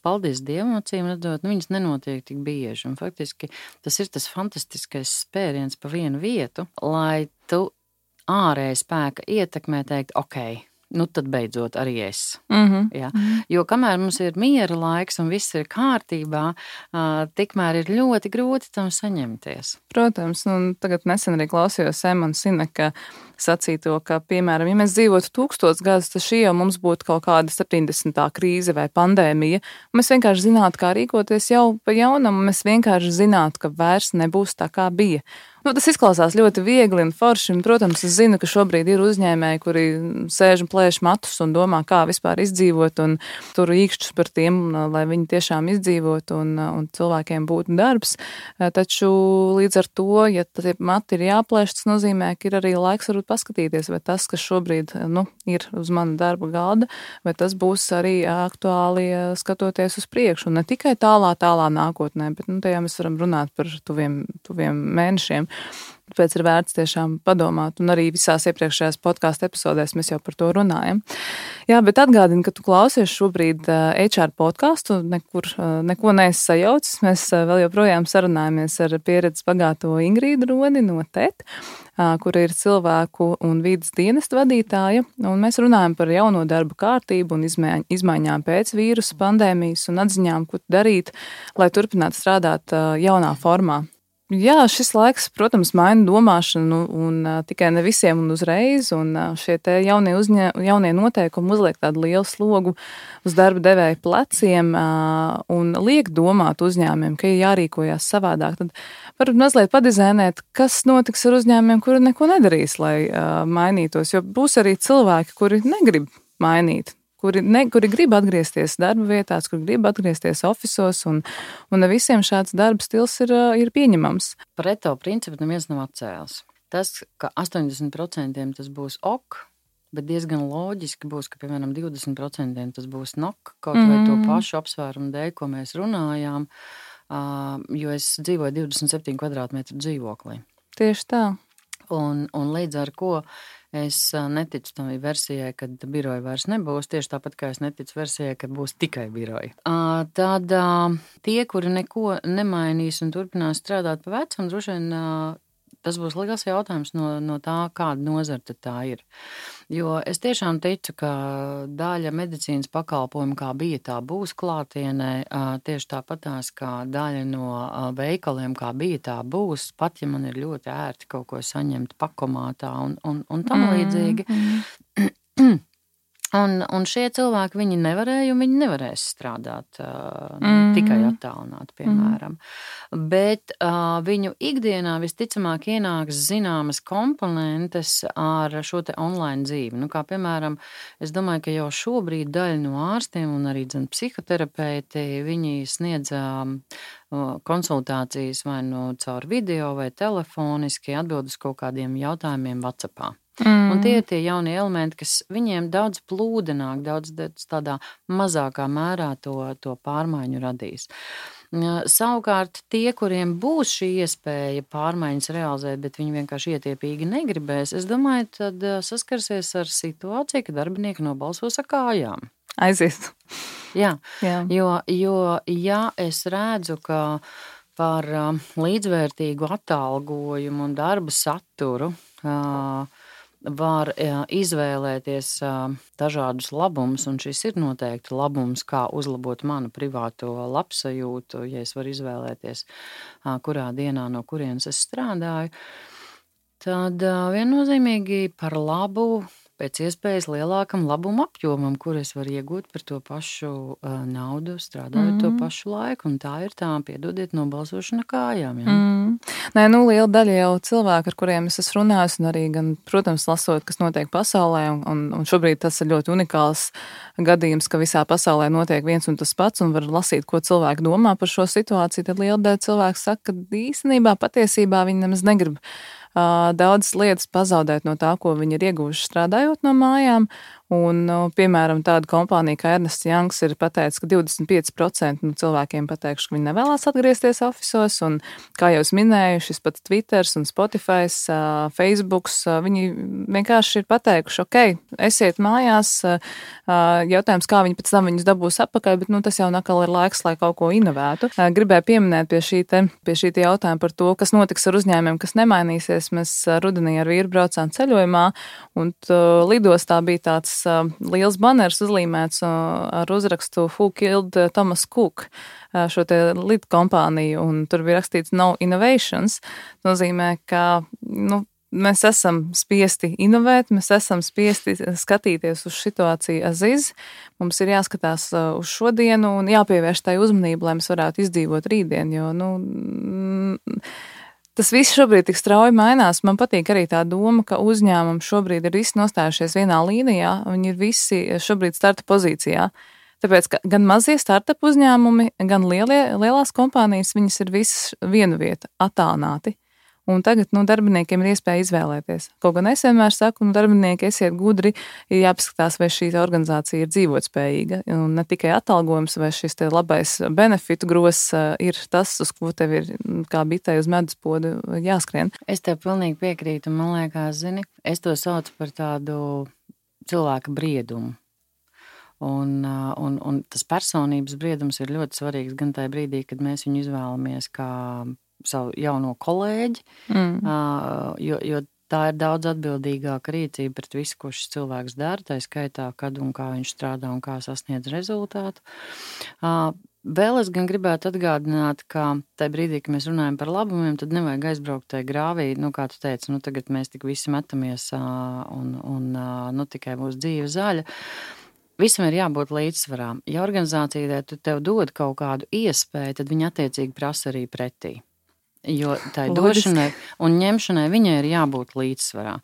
Speaker 2: paldies Dievam, acīm redzot, viņas nenotiek tik bieži, un faktiski tas ir tas fantastiskais spēriens pa vienu vietu, lai tu ārēja spēka ietekmē teikt, ok, tad beidzot arī es. Ja? Jo kamēr mums ir miera laiks un viss ir kārtībā, tikmēr ir ļoti grūti tam saņemties.
Speaker 1: Protams, un tagad nesen arī klausījos Emona Sineka sacīto, ka, piemēram, ja mēs dzīvotu 1000 gadus, tad šī jau mums būtu kaut kāda 70. krīze vai pandēmija. Mēs vienkārši zinātu, kā rīkoties jau pa jaunam, un mēs vienkārši zinātu, ka vairs nebūs tā, kā bija. Tas izklausās ļoti viegli un forši, un, protams, es zinu, ka šobrīd ir uzņēmēji, kuri sēž un plēš matus un domā, kā vispār izdzīvot, un tur īkšķus par tiem, lai viņi tiešām izdzīvot un cilvēkiem būtu darbs. Taču līdz ar to, ja tie mati ir jāplēš, tas nozīmē, ka ir arī laiks varbūt paskatīties, vai tas, kas šobrīd ir uz mana darba galda, vai tas būs arī aktuāli skatoties uz priekšu, un ne tikai tālā nākotnē, bet tajā mēs varam runāt par tuviem mēnešiem. Tāpēc ir vērts tiešām padomāt, un arī visās iepriekšējās podkāstu epizodēs mēs jau par to runājam. Jā, bet atgādini, ka tu klausies šobrīd HR podkāstu, neko neesi sajaucis. Mēs vēl joprojām sarunājamies ar pieredzes bagāto Ingrīdu Roni no TET, kura ir cilvēku un vides dienesta vadītāja, un mēs runājam par jauno darba kārtību un izmaiņām pēc vīrusa pandēmijas un atziņām, ko darīt, lai turpinātu strādāt jaunā formā. Jā, šis laiks, protams, maina domāšanu un tikai ne visiem un uzreiz, un šie te jaunie noteikumi uzliek tādu lielu slogu uz darba devēja pleciem un liek domāt uzņēmumiem, ka ir jārīkojās savādāk. Tad varbūt mazliet padizainēt, kas notiks ar uzņēmumiem, kuri neko nedarīs, lai mainītos, jo būs arī cilvēki, kuri negrib mainīt. Kuri grib atgriezties darba vietās, kuri grib atgriezties ofisos, un ne visiem šāds darba stils ir pieņemams.
Speaker 2: Pareto principu neviens nav atcēlis. Tas, ka 80% tas būs ok, bet diezgan loģiski būs, ka, piemēram, 20% tas būs nok, kaut vai to pašu apsvērumu dēļ, ko mēs runājām, jo es dzīvoju 27 kvadrātmetru dzīvoklī.
Speaker 1: Tieši tā.
Speaker 2: Un līdz ar ko es neticu tam versijai, kad biroja vairs nebūs, tieši tāpat kā es neticu versijai, ka būs tikai biroja. Tad tie, kuri neko nemainīs un turpinās strādāt pa vecam, droši vien tas būs liels jautājums no tā, kāda nozara tad tā ir. Jo es tiešām ticu, ka daļa medicīnas pakalpojumu, kā bija, tā būs klātienē, tieši tāpatās, kā daļa no veikaliem, kā bija, tā būs, pat ja man ir ļoti ērti kaut ko saņemt pakomātā un tam līdzīgi. Un šie cilvēki, viņi nevarēja un viņi nevarēs strādāt tikai attālināt, piemēram. Bet viņu ikdienā visticamāk ienāks zināmas komponentes ar šo te online dzīvi. Nu, kā piemēram, es domāju, ka jau šobrīd daļa no ārstiem un arī psihoterapeiti, viņi sniedz konsultācijas vai nu caur video vai telefoniski atbild uz kaut kādiem jautājumiem WhatsAppā. Un tie ir tie jaunie elementi, kas viņiem daudz plūdenāk, daudz tādā mazākā mērā to pārmaiņu radīs. Savukārt tie, kuriem būs šī iespēja pārmaiņas realizēt, bet viņi vienkārši ietiepīgi negribēs, es domāju, tad saskarsies ar situāciju, ka darbinieki nobalsos ar kājām.
Speaker 1: Aizies.
Speaker 2: Jā. Jo ja es redzu, ka par līdzvērtīgu atalgojumu un darba saturu var izvēlēties dažādus labumus, un šis ir noteikti labums, kā uzlabot manu privāto labsajūtu, ja es varu izvēlēties, kurā dienā no kurienes es strādāju, tad viennozīmīgi par labu, pēc iespējas lielākam labuma apjomam, kur es varu iegūt par to pašu naudu, strādājot to pašu laiku, un tā ir tā, piedodiet, nobalsošana kājām. Ja?
Speaker 1: Nē, liela daļa jau cilvēku, ar kuriem es esmu runājis, un arī gan, protams, lasot, kas notiek pasaulē, un šobrīd tas ir ļoti unikāls gadījums, ka visā pasaulē notiek viens un tas pats, un var lasīt, ko cilvēki domā par šo situāciju, tad liela daļa cilvēku saka, ka īstenībā patiesībā viņi nemaz negrib daudzas lietas pazaudēt no tā, ko viņi ir ieguvuši strādājot no mājām. Un, piemēram, tāda kompānija kā Ernsts Youngs ir pateicis, ka 25% no cilvēkiem pateikuši, ka viņi nevēlās atgriezties ofisos, un, kā jau es minēju, šis pats Twitters un Spotify, Facebooks, viņi vienkārši ir pateikuši, ok, esiet mājās, jautājums, kā viņi pēc tam viņus dabūs atpakaļ, bet, tas jau nakal ir laiks, lai kaut ko inovētu. Gribēju pieminēt pie šī jautājuma par to, kas notiks ar uzņēmumiem, kas nemainīsies. Mēs rudenī ar vīru braucām ceļojumā, un lidostā bija tāds liels baners uzlīmēts ar uzrakstu Who Killed Thomas Cook, šo te lidu kompāniju, un tur bija rakstīts No Innovations. Nozīmē, ka mēs esam spiesti inovēt, mēs esam spiesti skatīties uz situāciju aziz. Mums ir jāskatās uz šodienu un jāpievērš tai uzmanību, lai mēs varētu izdzīvot rītdien, jo, tas viss šobrīd tik strauji mainās. Man patīk arī tā doma, ka uzņēmumi šobrīd ir visi nostājušies vienā līnijā, viņi ir visi šobrīd starta pozīcijā. Tāpēc, ka gan mazie startup uzņēmumi, gan lielās kompānijas, viņas ir visas vienu vietu attālināti. Un tagad darbiniekiem ir iespēja izvēlēties. Kaut gan es vienmēr saku, darbinieki, esiet gudri, ir jāpaskatās, vai šī organizācija ir dzīvotspējīga. Un ne tikai atalgojums vai šis te labais benefitu gross ir tas, uz ko tev ir kā bitei uz meduspodu jāskrien.
Speaker 2: Es tev pilnīgi piekrītu, man liekas, zini, es to saucu par tādu cilvēka briedumu. Un tas personības briedums ir ļoti svarīgs gan tajā brīdī, kad mēs viņu izvēlamies kā savu jauno kolēģi, jo tā ir daudz atbildīgāka rīcība pret visu, ko šis cilvēks dara, tā skaitā, kad un kā viņš strādā un kā sasniedz rezultātu. Vēl es gan gribētu atgādināt, ka tajā brīdī, kad mēs runājam par labumiem, tad nevajag aizbraukt tajā grāvī, kā tu teici, tagad mēs tik visi metamies un tikai būs dzīve zaļa. Visam ir jābūt līdzsvarā. Ja organizācija tev dod kaut kādu iespēju, tad viņi attiecīgi prasa arī pretī. Jo tai došanai un ņemšanai viņai ir jābūt līdzsvarā.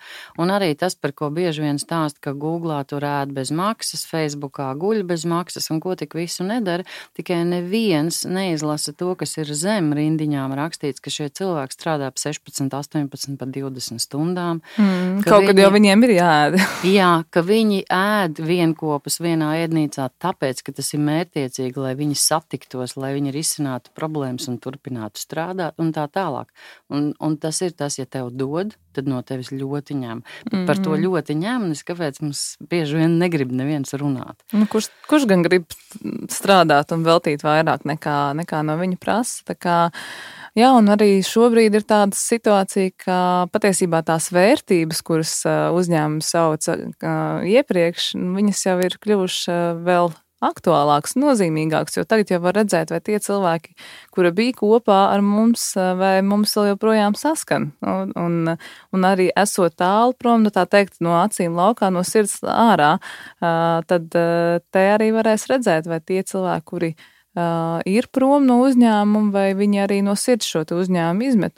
Speaker 2: Un arī tas, par ko bieži vien stāst, ka Googlā tur ēd bez maksas, Facebookā guļ bez maksas un ko tik visu nedara, tikai neviens neizlasa to, kas ir zem rindiņām rakstīts, ka šie cilvēki strādā pa 16, 18, pa 20 stundām.
Speaker 1: Kaut kad jau viņiem ir jāēd.
Speaker 2: Jā, ka viņi ēd vienkopus vienā ēdnīcā tāpēc, ka tas ir mērķtiecīgi, lai viņi satiktos, lai viņi risinātu problēmas un turpinātu strādāt un tā tālāk. Un tas ir tas, ja tev dod, tad no tevis ļoti ņem. Bet par to ļoti ņemnis, kāpēc mums bieži vien negrib neviens runāt.
Speaker 1: Kurš gan grib strādāt un veltīt vairāk nekā no viņa prasa? Tā kā, jā, un arī šobrīd ir tāda situācija, ka patiesībā tās vērtības, kuras uzņēmumi sauca iepriekš, viņas jau ir kļuvušas vēl aktuālāks, nozīmīgāks, jo tagad jau var redzēt, vai tie cilvēki, kuri bija kopā ar mums, vai mums vēl joprojām saskan. Un arī esot tālu prom, tā teikt, no acīm laukā, no sirds ārā, tad te arī varēs redzēt, vai tie cilvēki, kuri ir prom no uzņēmuma, vai viņi arī no sirds šo uzņēmumu izmet.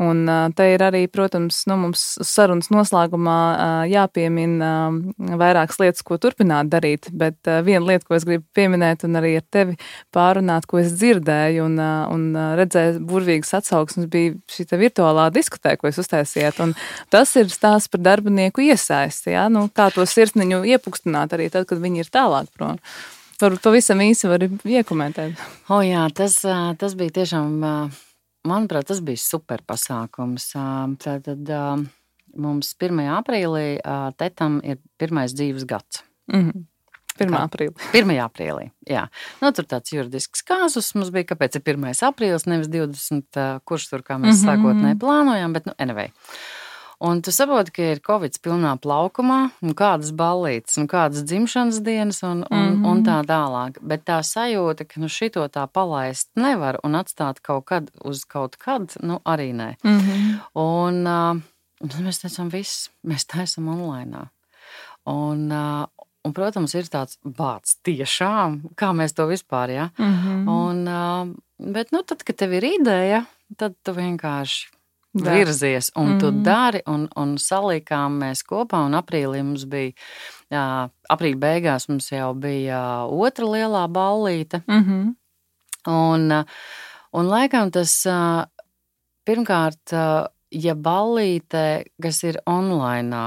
Speaker 1: Un te ir arī, protams, mums sarunas noslēgumā jāpiemina vairākas lietas, ko turpināt darīt, bet viena lieta, ko es gribu pieminēt un arī ar tevi pārunāt, ko es dzirdēju un redzēju burvīgas atsauksmes, bija šī virtuālā diskotē, ko jūs uztaisījāt. Un tas ir stāsts par darbinieku iesaisti, ja? Kā to sirsniņu iepukstināt arī tad, kad viņi ir tālāk prom. Varbūt pavisam īsi vari iekomentēt.
Speaker 2: Jā, tas bija tiešām... Manuprāt, tas bija super pasākums. Tātad mums 1. aprīlī tetam ir pirmais dzīves gads.
Speaker 1: 1. aprīlī.
Speaker 2: 1. aprīlī, jā. Tur tāds juridisks kāzus mums bija, kāpēc ir 1. aprīlis, nevis 20, kurš tur, kā mēs sākotnēji plānojām, bet anyway. Un tu saproti, ka ir Covid pilnā plaukumā, un kādas ballītes, un kādas dzimšanas dienas, un tā tālāk. Bet tā sajūta, ka šito tā palaist nevar un atstāt kaut kad uz kaut kad, arī nē. Un mēs teicām, mēs taisam online. Un, protams, ir tāds bāds tiešām, kā mēs to vispār, jā. Bet, tad, kad tev ir ideja, tad tu vienkārši virzies, un tu dari, un salikām mēs kopā, un aprīlī mums bija, aprīļa beigās mums jau bija otra lielā ballīte, un laikam tas, pirmkārt, ja ballīte, kas ir online,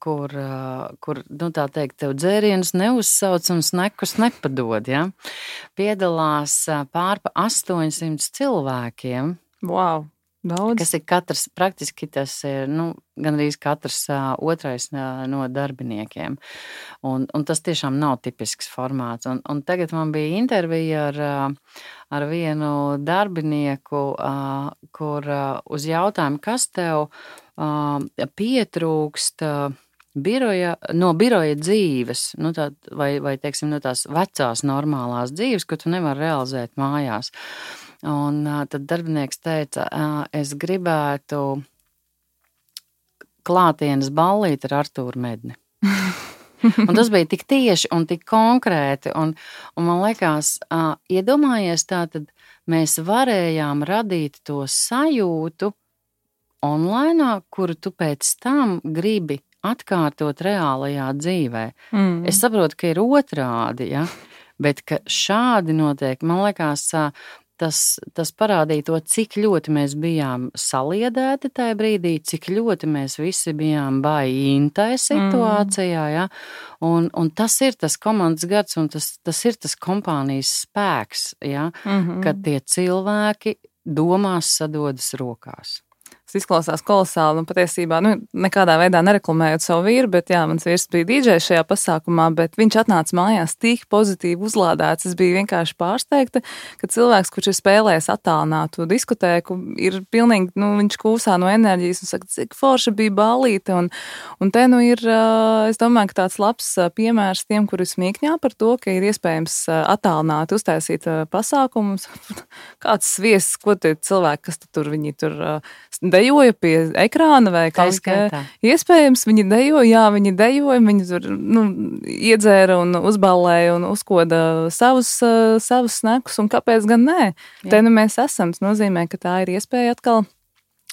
Speaker 2: kur tā teikt, tev dzērienus neuzsauc un snekus nepadod, ja, piedalās pārpa 800 cilvēkiem.
Speaker 1: Wow! Daudz.
Speaker 2: Kas ir katrs, praktiski tas ir, gandrīz katrs otrais no darbiniekiem. Un tas tiešām nav tipisks formāts. Un tagad man bija intervija ar vienu darbinieku, kur uz jautājumu, kas tev pietrūkst no biroja dzīves, vai teiksim, no tās vecās normālās dzīves, ko tu nevari realizēt mājās. Un tad darbinieks teica, es gribētu klātienes ballīt ar Artūru Medni. Un tas bija tik tieši un tik konkrēti. Un man liekas, iedomājies tā, tad mēs varējām radīt to sajūtu online, kuru tu pēc tam gribi atkārtot reālajā dzīvē. Es saprotu, ka ir otrādi, ja? Bet ka šādi notiek, man liekas, tas parādīja to, cik ļoti mēs bijām saliedēti tajā brīdī, cik ļoti mēs visi bijām baigi situācijā, ja? Un tas ir tas komandas gars, un tas ir tas kompānijas spēks, ja? Kad tie cilvēki domās sadodas rokās.
Speaker 1: Tas izklausās kolosāli un patiesībā, nekādā veidā nereklamējot savu vīru, bet jā, mans vīrs bija dīdžejs šajā pasākumā, bet viņš atnāca mājās tik pozitīvi uzlādēts. Es biju vienkārši pārsteigta, ka cilvēks, kurš ir spēlējis attālinātu diskotēku, ir pilnīgi, viņš kūsā no enerģijas un saka, cik forša bija ballīte. Un te ir, es domāju, ka tāds labs piemērs tiem, kuri smīkņā par to, ka ir iespējams attālināti uztaisīt pasākumus. Kāds sviests, ko tie cilvēki, kas viņi tur dejoja pie ekrāna vai kaut kā. Iespējams, viņi dejoja, viņi tur iedzēra un uzballēja un uzkoda savus snekus, un kāpēc gan nē? Jā. Te mēs esam, tas nozīmē, ka tā ir iespēja atkal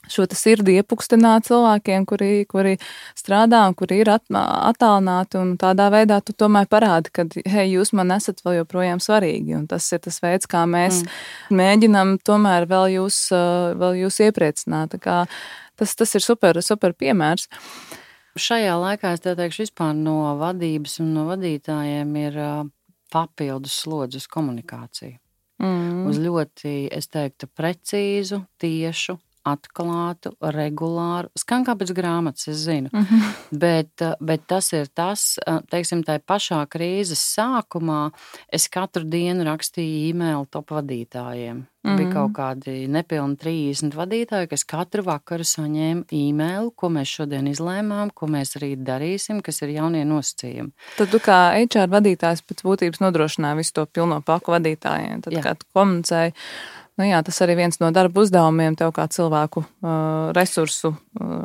Speaker 1: šo sirdi iepukstināt cilvēkiem, kuri strādā un kuri ir attālināti, un tādā veidā tu tomēr parādi, ka, hei, jūs man esat vēl joprojām svarīgi, un tas ir tas veids, kā mēs mēģinam tomēr vēl jūs iepriecināt. Tas ir super piemērs.
Speaker 2: Šajā laikā es teikšu vispār no vadības un no vadītājiem ir papildus slodzi uz komunikāciju. Uz ļoti, es teiktu, precīzu, tiešu, atklātu, regulāru, skan kā pēc grāmatas, es zinu, bet tas ir tas, teiksim, tā pašā krīzes sākumā es katru dienu rakstīju e-mailu top vadītājiem. Bija kaut kādi nepilni 30 vadītāji, kas katru vakaru saņēma e-mailu, ko mēs šodien izlēmām, ko mēs rīt darīsim, kas ir jaunie nosacījumi.
Speaker 1: Tad tu kā HR vadītājs pēc būtības nodrošināji visu to pilno paku vadītājiem, tad kā tu komunicēji. Jā, tas arī viens no darba uzdevumiem tev kā cilvēku resursu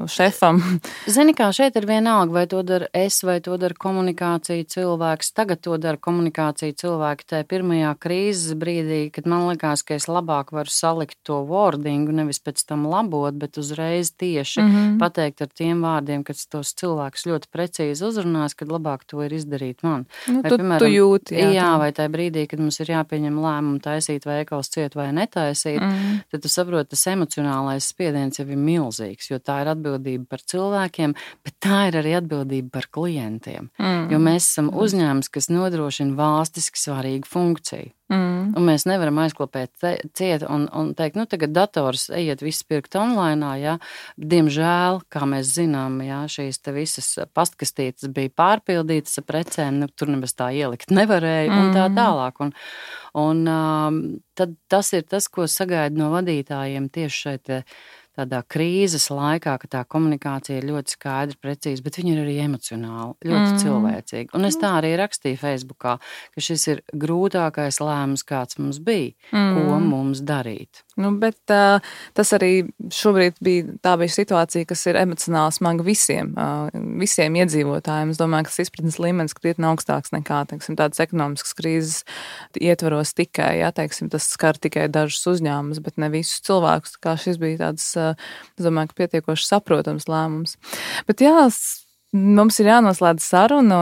Speaker 1: šefam.
Speaker 2: Zini, kā šeit ir vienalga, vai to dara es, vai to dara komunikācija cilvēks. Tagad to dara komunikācija cilvēki tajā pirmajā krīzes brīdī, kad man likās, ka es labāk varu salikt to wordingu, nevis pēc tam labot, bet uzreiz tieši pateikt ar tiem vārdiem, kad tos cilvēkus ļoti precīzi uzrunās, kad labāk to ir izdarīt man. Vai, piemēram,
Speaker 1: tu jūti.
Speaker 2: Jā, vai tajā brīdī, kad mums ir jāpieņem lēmumu taisīt veikals ciet vai netaisīt, tad tu saproti, tas emocionālais spiediens jau ir milzīgs, jo tā ir atbildība par cilvēkiem, bet tā ir arī atbildība par klientiem. Jo mēs esam uzņēmums, kas nodrošina valstiski svarīgu funkciju. Un mēs nevaram aizklopēt ciet un teikt, tagad dators ejiet viss pirkt online, jā. Diemžēl, kā mēs zinām, jā, šīs te visas pastkastītes bija pārpildītas ar precēm, tur nemaz tā ielikt nevarēja un tā tālāk. Un tad tas ir tas, ko sagaidu no vadītājiem tieši šeit tādā krīzes laikā, ka tā komunikācija ir ļoti skaidra, precīza, bet viņa ir arī emocionāla, ļoti cilvēcīga. Un es tā arī rakstīju Facebookā, ka šis ir grūtākais lēmums, kāds mums bija, ko mums darīt.
Speaker 1: Bet tas arī šobrīd bija situācija, kas ir emocionāli smaga visiem iedzīvotājiem. Es domāju, ka tas izpratnes līmenis krietni augstāks nekā, teiksim, tādas ekonomiskas krīzes ietvaros tikai, jā, teiksim, tas skar tikai dažus uzņēmumus, bet ne visus cilvēkus. Tā kā šis bija tāds, es domāju, ka pietiekoši saprotams lēmums. Bet jā, mums ir jānoslēdz saruna,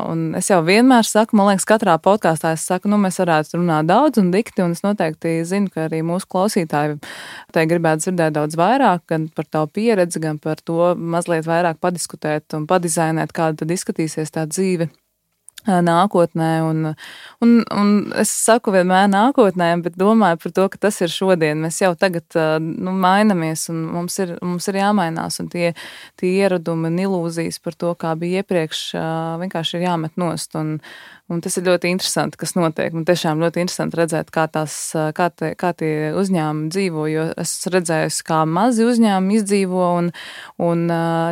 Speaker 1: un es jau vienmēr saku, man liekas, katrā podkāstā es saku, mēs varētu runāt daudz un dikti, un es noteikti zinu, ka arī mūsu klausītāji te gribētu dzirdēt daudz vairāk, gan par tavu pieredzi, gan par to mazliet vairāk padiskutēt un padizainēt, kāda tad izskatīsies tā dzīve nākotnē, un es saku vienmēr nākotnē, bet domāju par to, ka tas ir šodien. Mēs jau tagad mainamies, un mums ir jāmainās, un tie ieradumi un ilūzijas par to, kā bija iepriekš, vienkārši ir jāmet nost, un tas ir ļoti interesanti, kas notiek. Man tiešām ļoti interesanti redzēt, kā tie uzņēmumi dzīvo, jo es redzējusi, kā mazi uzņēmumi izdzīvo un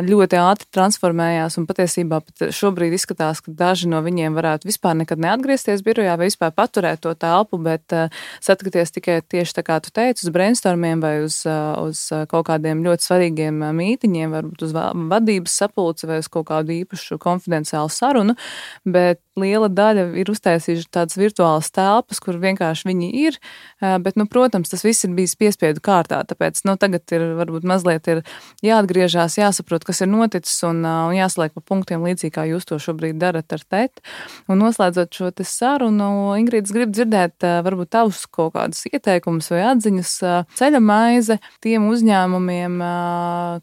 Speaker 1: ļoti ātri transformējās, un patiesībā pat šobrīd izskatās, ka daži no viņiem varētu vispār nekad neatgriezties birojā vai vispār paturēt to telpu, bet satikties tikai tieši tā kā tu teici, uz brainstormiem vai uz kaut kādiem ļoti svarīgiem mītiņiem, varbūt uz vadības sapulci vai uz kaut kādu īpašu konfidenciālu sarunu, bet liela daļa ir uztaisījuši tādas virtuālas telpas, kur vienkārši viņi ir, bet, protams, tas viss ir bijis piespiedu kārtā, tāpēc, tagad varbūt mazliet ir jāatgriežās, jāsaprot, kas ir noticis un jāsaliek pa punktiem līdzīgi, kā jūs to šobrīd darat ar teti. Un noslēdzot šo te sarunu, Ingrīda, es gribu dzirdēt varbūt tavus kaut kādus ieteikumus vai atziņas ceļa maize tiem uzņēmumiem,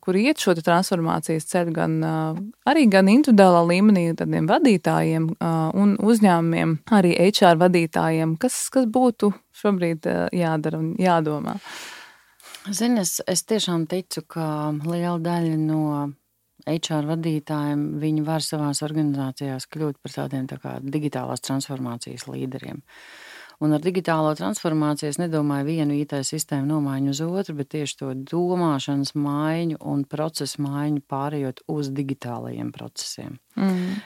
Speaker 1: kuri iet šo transformācijas ceļu gan individuālā līmenī, tādiem vadītājiem un uzņēmumiem, arī HR vadītājiem, kas būtu šobrīd jādara un jādomā?
Speaker 2: Zini, es tiešām ticu, ka liela daļa no HR vadītājiem, viņi var savās organizācijās kļūt par tādiem tā kā digitālās transformācijas līderiem. Un ar digitālo transformāciju es nedomāju vienu IT sistēmu nomaiņu uz otru, bet tieši to domāšanas maiņu un procesu maiņu pārējot uz digitālajiem procesiem.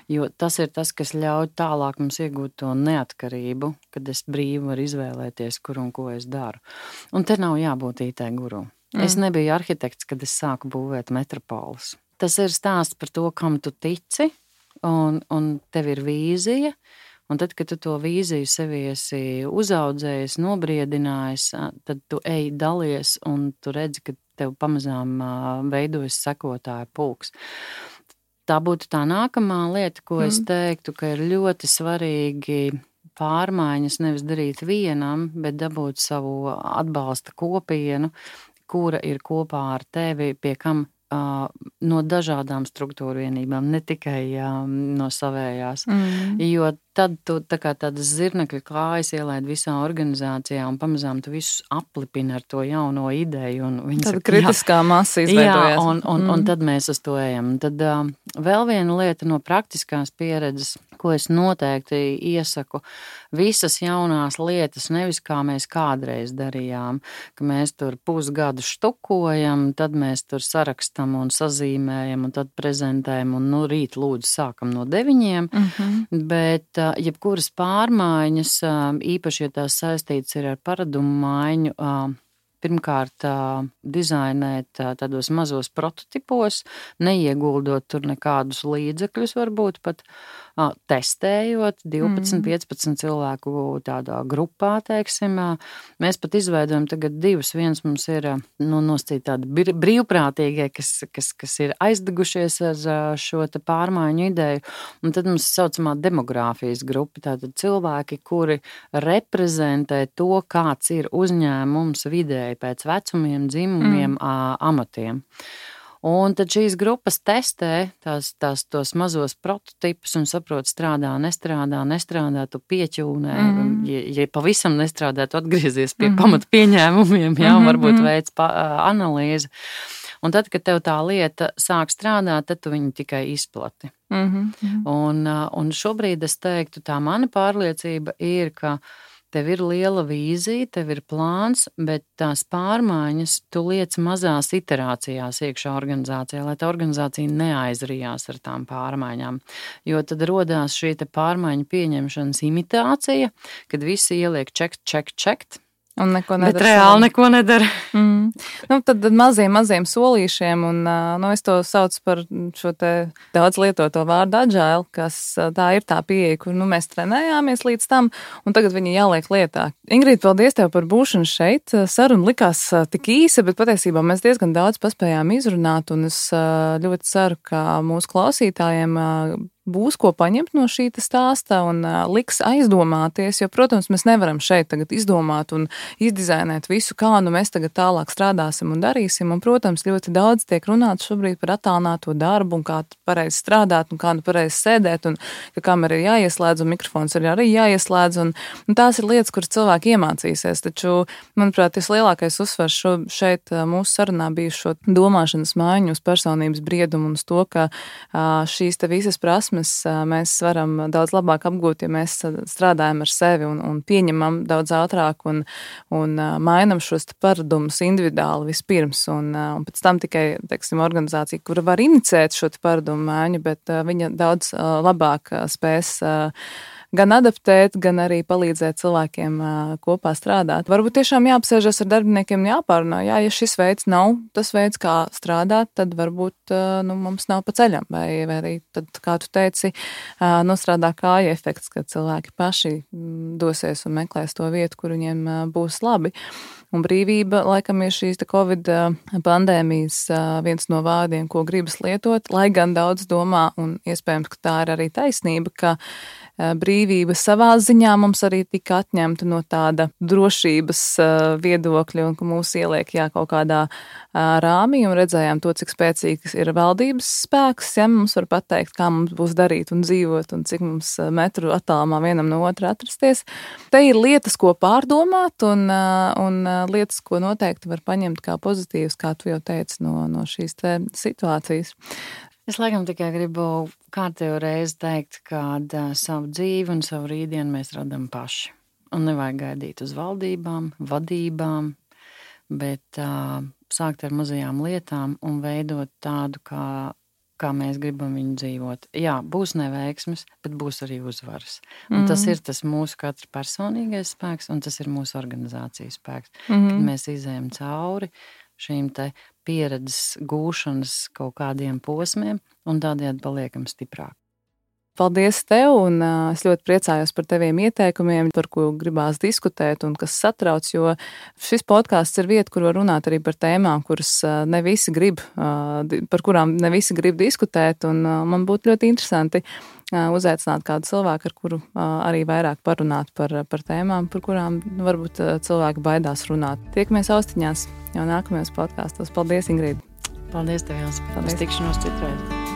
Speaker 2: Jo tas ir tas, kas ļauj tālāk mums iegūt to neatkarību, kad es brīvi varu izvēlēties, kur un ko es daru. Un te nav jābūt IT guru. Es nebiju arhitekts, kad es sāku būvēt metropolus. Tas ir stāsts par to, kam tu tici, un tev ir vīzija. Un tad, kad tu to vīziju sevi esi uzaudzējis, nobriedinājis, tad tu ej dalies un tu redzi, ka tev pamazām veidojas sekotāju pulks. Tā būtu tā nākamā lieta, ko es teiktu, ka ir ļoti svarīgi pārmaiņas nevis darīt vienam, bet dabūt savu atbalsta kopienu, kura ir kopā ar tevi, pie kam no dažādām struktūru vienībām, ne tikai no savējās. Jo tad tu tā kā tādas zirnekļu kājas ielaid visā organizācijā un pamazām tu visus aplipini ar to jauno ideju.
Speaker 1: Tāda kritiskā masa izveidojās.
Speaker 2: Jā, un tad mēs uz to ejam. Tad vēl viena lieta no praktiskās pieredzes, ko es noteikti iesaku, visas jaunās lietas, nevis kā mēs kādreiz darījām, ka mēs tur pusgadu štukojam, tad mēs tur sarakstam un sazīmējam un tad prezentējam un rīt lūdzu sākam no 9, bet jebkuras pārmaiņas, īpaši, ja tās saistītas ir ar paradumu maiņu, pirmkārt dizainēt tādos mazos prototipos, neieguldot tur nekādus līdzekļus, varbūt pat testējot 12-15 cilvēku tādā grupā, teiksim. Mēs pat izveidojam tagad 2. Viens mums ir noscīt tādi brīvprātīgie, kas ir aizdegušies ar šo te pārmaiņu ideju. Un tad mums saucamā demogrāfijas grupa, tātad cilvēki, kuri reprezentē to, kāds ir uzņēmums vidēji pēc vecumiem, dzimumiem, amatiem. Un tad šīs grupas testē tos mazos prototipus un saprot, strādā, nestrādā, tu pieķūnē. Ja pavisam nestrādā, tu atgriezies pie pamata pieņēmumiem, varbūt veic analīzi. Un tad, kad tev tā lieta sāk strādāt, tad tu viņu tikai izplati. Un šobrīd es teiktu, tā mana pārliecība ir, ka tev ir liela vīzija, tev ir plāns, bet tās pārmaiņas tu liec mazās iterācijās iekšā organizācijā, lai tā organizācija neaizrijās ar tām pārmaiņām. Jo tad rodās šī te pārmaiņu pieņemšanas imitācija, kad visi ieliek čekt.
Speaker 1: Un neko nedara.
Speaker 2: Bet reāli neko nedara.
Speaker 1: Tad maziem solīšiem, un es to saucu par šo te daudz lietoto vārdu agile, kas tā ir tā pieeja, kur mēs trenējāmies līdz tam, un tagad viņi jāliek lietā. Ingrid, paldies tev par būšanu šeit. Saruna likās tik īsa, bet patiesībā mēs diezgan daudz paspējām izrunāt, un es ļoti ceru, ka mūsu klausītājiem būs ko paņemt no šī stāsta un liks aizdomāties, jo, protams, mēs nevaram šeit tagad izdomāt un izdizainēt visu, kā mēs tagad tālāk strādāsim un darīsim, un, protams, ļoti daudz tiek runāts šobrīd par attālināto darbu un kā pareizi strādāt un kā pareizi sēdēt un ka kamera ir jāieslēdz un mikrofons ir arī jāieslēdz, un tās ir lietas, kuras cilvēki iemācīsies, taču, manuprāt, tas lielākais uzsvars šeit mūsu sarunā bija šo domāšanas maiņu uz personības briedumu un uz to, ka šīs te visas prasmes mēs varam daudz labāk apgūt, ja mēs strādājam ar sevi un pieņemam daudz ātrāk un mainam šos paradumus individuāli vispirms. Un pēc tam tikai, teiksim, organizācija, kura var inicēt šo paradumu maiņu, bet viņa daudz labāk spēs gan adaptēt, gan arī palīdzēt cilvēkiem kopā strādāt. Varbūt tiešām jāapsēžas ar darbiniekiem un jāpārunā, ja šis veids nav tas veids, kā strādāt, tad varbūt mums nav pa ceļam, vai arī tad, kā tu teici, nostrādā kāja efekts, kad cilvēki paši dosies un meklēs to vietu, kur viņiem būs labi. Un brīvība, laikam, ir šīs Covid pandēmijas viens no vārdiem, ko gribas lietot, lai gan daudz domā, un iespējams, ka tā ir arī taisnība, ka brīvība savā ziņā mums arī tika atņemta no tāda drošības viedokļa, un ka mūs ieliek kaut kādā rāmī, un redzējām to, cik spēcīgs ir valdības spēks, mums var pateikt, kā mums būs darīt un dzīvot, un cik mums metru attālumā vienam no otra atrasties. Te ir lietas, ko pārdomāt, un lietas, ko noteikti var paņemt kā pozitīvas, kā tu jau teici, no šīs te situācijas.
Speaker 2: Es laikam tikai gribu kārtējo reizi teikt, ka savu dzīvi un savu rītdienu mēs radam paši. Un nevajag gaidīt uz valdībām, vadībām, bet sākt ar mazajām lietām un veidot tādu, kā mēs gribam viņu dzīvot. Jā, būs neveiksmes, bet būs arī uzvaras. Un tas ir tas mūsu katra personīgais spēks, un tas ir mūsu organizācijas spēks. Kad mēs izējam cauri šīm te pieredzes gūšanas kaut kādiem posmiem un tādējādi paliekam stiprāk.
Speaker 1: Paldies tev, un es ļoti priecājos par taviem ieteikumiem, par ko gribās diskutēt un kas satrauc, jo šis podcasts ir vieta, kur var runāt arī par tēmām, par kurām ne visi grib diskutēt, un man būtu ļoti interesanti uzaicināt kādu cilvēku, ar kuru arī vairāk parunāt par tēmām, par kurām varbūt cilvēki baidās runāt. Tiekamies austiņās jau nākamajos podkastos. Paldies, Ingrīda!
Speaker 2: Paldies tev, Jānis! Paldies! Uz tikšanos citreiz!